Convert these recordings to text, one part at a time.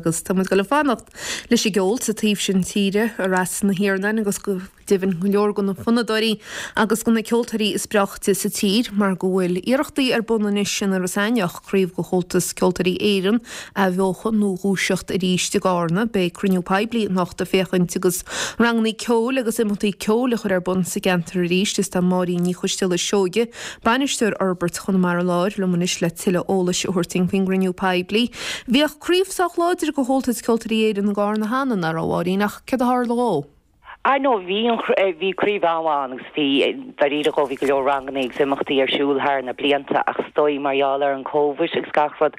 Agus tá muid ag dul ag fanacht leis an gceol sa taobh sin tíre, i Ros na hIarnáin agus go deimhin go leor de na fonnadóirí agus de na ceoltóirí is breáichte sa tír mar go bhfuil iarrachtaí ar bun anois in Iorras Aithneach craobh de Chomhaltas Ceoltóirí Éireann a athbheochan nó dhúiseacht arís i gCarna. Beidh cruinniú poiblí anocht ag féachaint agus rangannaí ceoil agus imeachtaí ceoil a chur ar bun sa gceantar arís. Is tá Máirín Ní Choisdealbha Seoige, Bainisteoir Fhorbairt Chonamara Láir, liom anois le tuilleadh eolais a thabhairt dúinn faoin gcruinniú poiblí. Bhíodh craobh sách láidir de Chomhaltas Ceoltóirí Éireann i gCarna cheana, nach raibh, a Mháirín, ach céard a tharla dhó? Ah no, bhí an, bhí craobh an-mhaith ann agus bhí, dáiríre dhó, bhí go leor rangannaí agus imeachtaí ar siúl thar na blianta ach is dóigh mar gheall ar an Covid agus gach rud,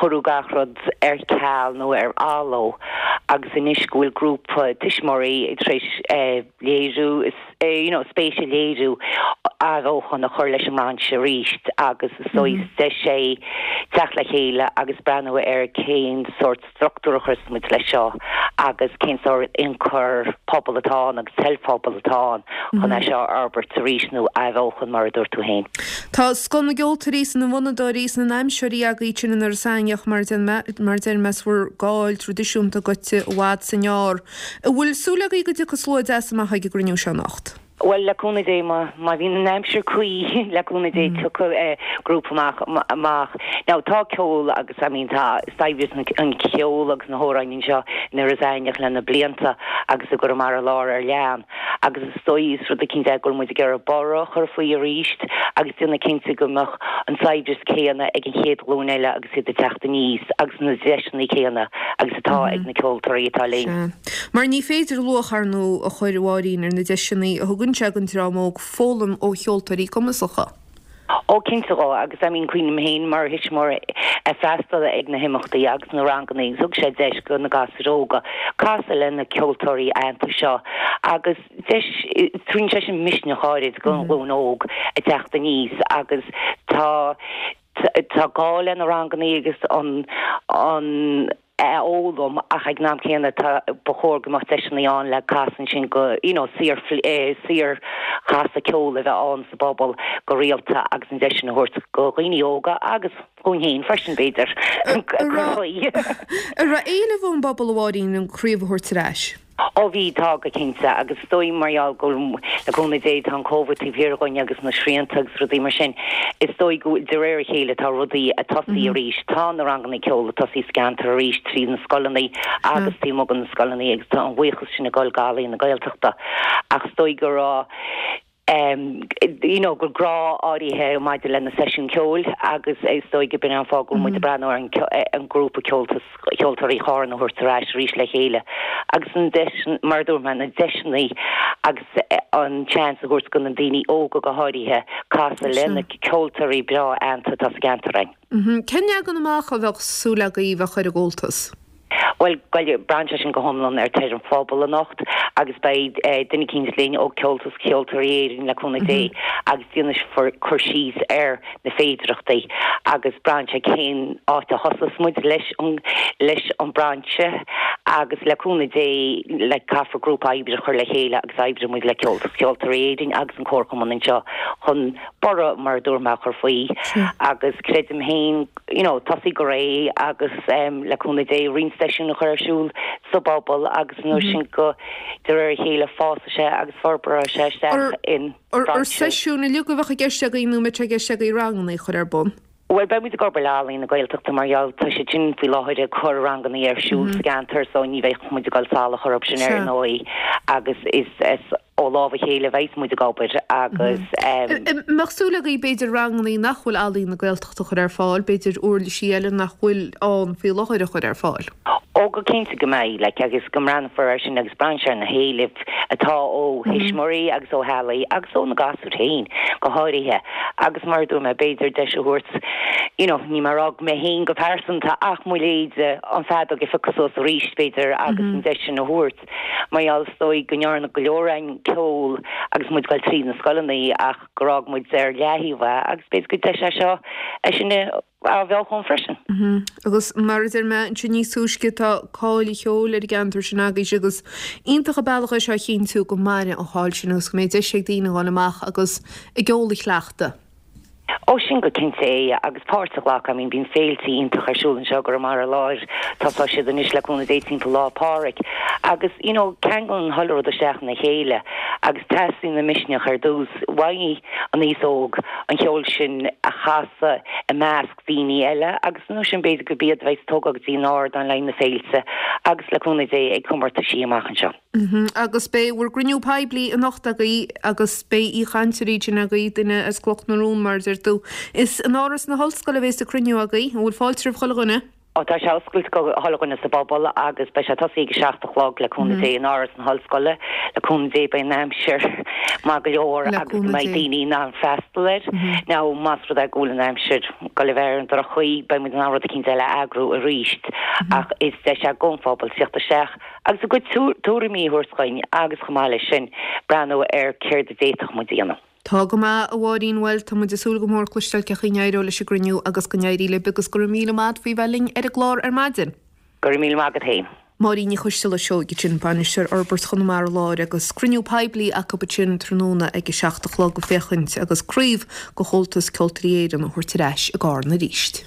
cuireadh gach rud ar ceal nó ar athló agus anois go bhfuil grúpa tuismitheoirí tar éis léiriú, you know, spéis a léiriú athbheochan a chur leis an mbrainse arís agus is dóigh is deis é teacht le chéile agus breathnú ar cén sórt struchtúr a chuirfeas muid leis seo agus cén sórt ionchur pobail atá ann agus toil phobail atá ann chun é seo a fhorbairt arís nó a athbheochan mar a dúirt tú féin. Tá scoth na gceoltóirí is na bhfonnadóirí is na n-aimseoirí agaibh ansin in Iorras Aithneach mar mar a deir mé is bhur gcáil traidisiúnta gaibhte i bhfad 's i ngearr. An bhfuil súil agaibh go dtiocfaidh slua deas amach ag an gcruinniú seo anocht? Bhuel, le cúnamh Dé, má, má bhíonn an aimsir cuí, le cúnamh Dé, tiocfaidh grúpa amach, amach. Now, tá ceol agus, I mean, tá saibhreas an cheoil agus na hamhráin anseo in Iorras Aithneach le na blianta agus i gConamara Láir ar lean. Agus is dóigh, is rud eicínt é go bhfuil muid ag iarraidh borradh a chur faoi arís agus déanamh cinnte go mbeadh an saibhreas céanna ag an chéad ghlúin eile agus iad ag teacht aníos agus na deiseanna céanna agus atá ag na ceoltóirí atá linn. Sea. Mar ní féidir luach, ar ndóigh, a chur, a Mháirín, ar na deiseanna a thugann sé don dream óg foghlaim ó cheoltóirí cumasacha. Ó, cinnte dhó, agus I mean cuimhním féin mar thuismitheoir ag freastal ag na himeachtaí agus na ranganna agus thug sé deis do na gasúir óga casadh le na ceoltóirí aitheanta seo agus deis, tugann sé sin misneach áirid don ghlúin óg ag teacht aníos agus tá Tá gá le na rangannaí agus an an a fhoghlaim ach ag an am céanna tá ba chóir go mbeadh deiseanna ann le casadh ansin go you know saor saor chasadh ceoil a bheith ann sa bpobal go rialta agus an deis sin a thabhairt go dhaoine óga agus dhúinn féin freisin b'fhéidir cur faoi. An raibh éileamh ón bpobal a Mháirín an craobh a thabhairt ar ais? Ó bhí, tá, go cinnte, agus is dóigh mar gheall go bhfuil, le cúnamh Dé, tá an Covid taobh thiar dhúinn agus na srianta agus rudaí mar sin, is dóigh go bhfuil, de réir a chéile, tá rudaí ag tosaí arís. Tá na ranganna ceoil ag tosaí sa gceantar arís trí na scoileanna agus taobh amuigh de na scoileanna agus tá an bhuíochas sin ag dul go Ealaín na Gaeltachta. Ach is dóigh go raibh, you know, go grá áirithe maidir le na seisiúin ceoil agus is dóigh go b'in an fáth go bhfuil muid ag breathnú ar an grúpa Comhaltas Ceoltóirí Chárna a thabhairt ar ais arís le chéile agus an deis, mar a dúirt mé, na deiseanna agus an seans a thabhairt do na daoine óga go háirithe casadh le na ceoltóirí breá aitheanta atá sa gceantar againn. Cén leagan amach a bheadh súil agaibh a chur ar an gComhaltas? Bhuel, braitheann sé sin go hiomlán ar toil an phobail anocht agus beidh duine eicínt linn ó Comhaltas Ceoltóirí Éireann le cúnamh Dé agus déanfar cur síos ar na féidireachtaí agus braitheann sé cén áit a thosós muid leis an leis an brainse agus le cúnamh Dé le caithfear grúpa oibre a chur le chéile agus oibreoidh muid le Comhaltas Ceoltóirí Éireann agus an Comharchumann anseo chun borradh mar a dúirt mé a chur faoi agus creidim féin you know, tosaí go réidh agus le cúnamh Dé roinnt seisiún a chur ar siúl sa bpobal agus an uair sin go de réir a chéile fásfaidh sé agus forbróidh sé isteach in Ar brainse. seisiúin uilig a bheadh i gceist agaibh nó an mbeidh sé i gceist agaibh ranganna a chur ar bun? Bhuel, beidh muid ag obair le Ealaín na Gaeltachta mar gheall tá siad sin faoi láthair ag cur ranganna ar siúl sa gceantar so ní bheidh muid ag dul salach orthu sin ar ndóigh agus is ó lámh a chéile a bheas muid ag obair agus. An mbeadh súil agaibh b'fhéidir ranganna nach bhfuil Ealaín na Gaeltachta a chur ar fáil, b'fhéidir uirlisí eile nach bhfuil ann faoi láthair a chur ar fáil? Ó go cinnte go mbeidh, like, agus go mbreathnófar air sin agus braitheann sé ar na héilimh atá ó thuismitheoirí agus ó theaghlaigh agus ó na gasúir féin go háirithe agus mar a dúirt mé b'fhéidir deis a thabhairt you know, níl mé ag rá mé féin go pearsanta ach mo leithéide an feadóg a phiocadh suas arís b'fhéidir agus an deis sin a thabhairt. Mar gheall is dóigh go ndearna go leor againn ceol agus muid ag dul tríd na scoileanna ach gur fhág muid ar leathaobh é agus b'fhéidir gur deis é seo é sin a athbheochan freisin. Agus mar a deir mé ansin níos túisce tá cáil an cheoil ar an gceantar sin agaibhse agus iontach an bealach é seo a chinntiú go mairfidh an cháil sin agus go mbeidh deis ag daoine a dhul amach agus a gceol a chleachtadh. Ó sin go cinnte é agus páirt a ghlacadh, I mean bíonn féilte iontach ar siúl anseo i gConamara Láir, tosóidh siad anois le cúnamh Dé timpeall Lá Pádraig agus you know ceanglann chuile rud isteach ina chéile agus teastaíonn an misneach ar dtús uaidh an aos óg an cheol sin a chasadh i measc daoine eile agus nó sin b'fhéidir gurb iad a bheidh ag tógáil go dtí an ardán le haghaidh na féilte agus le cúnamh Dé ag comórtaisí amach anseo. Agus beidh bhur gcruinniú poiblí anocht agaibh agus beidh aoichainteoirí ansin agaibh, duine as Cloch na Rón mar a deir tú. Is in Áras na hOllscoile a bhéas an cruinniú agaibh. An bhfuil fáilte roimh chuile dhuine? Ó tá sé oscailte go chuile dhuine sa bpobal agus beidh sé tosaithe ag a 7 a chlog le cúnamh Dé in Áras na hOllscoile. Le cúnamh Dé beidh an aimsir maith go leor agus go mbeidh daoine in ann freastal air. Now más rud é go bhfuil an aimsir ag dul a bheith ar an droch-chaoi beidh muid in ann rud eicínt eile a eagrú arís ach is deis é don phobal tíocht isteach agus a gcuid tuairimí a thabhairt dhuinn agus chomh maith leis sin breathnú ar céard a d'fhéadfadh muid a dhéanamh. Tá go maith, a Mháirín, bhuel, tá muid ag súil go mór cloisteáil cén chaoi a n-éireoidh leis an gcruinniú agus go n-éirí libh agus go raibh míle maith agat faoi bheith linn ar an gclár ar maidin. Go raibh míle maith agat féin. Máirín Ní Choisteala Seoighe ansin, Bainisteoir Fhorbairt Chonamara Láir agus cruinniú poiblí acu ansin tráthnóna ag a 7 a chlog ag féachaint agus craobh de Chomhaltas Ceoltóirí Éireann a thabhairt ar ais i gCarna arís.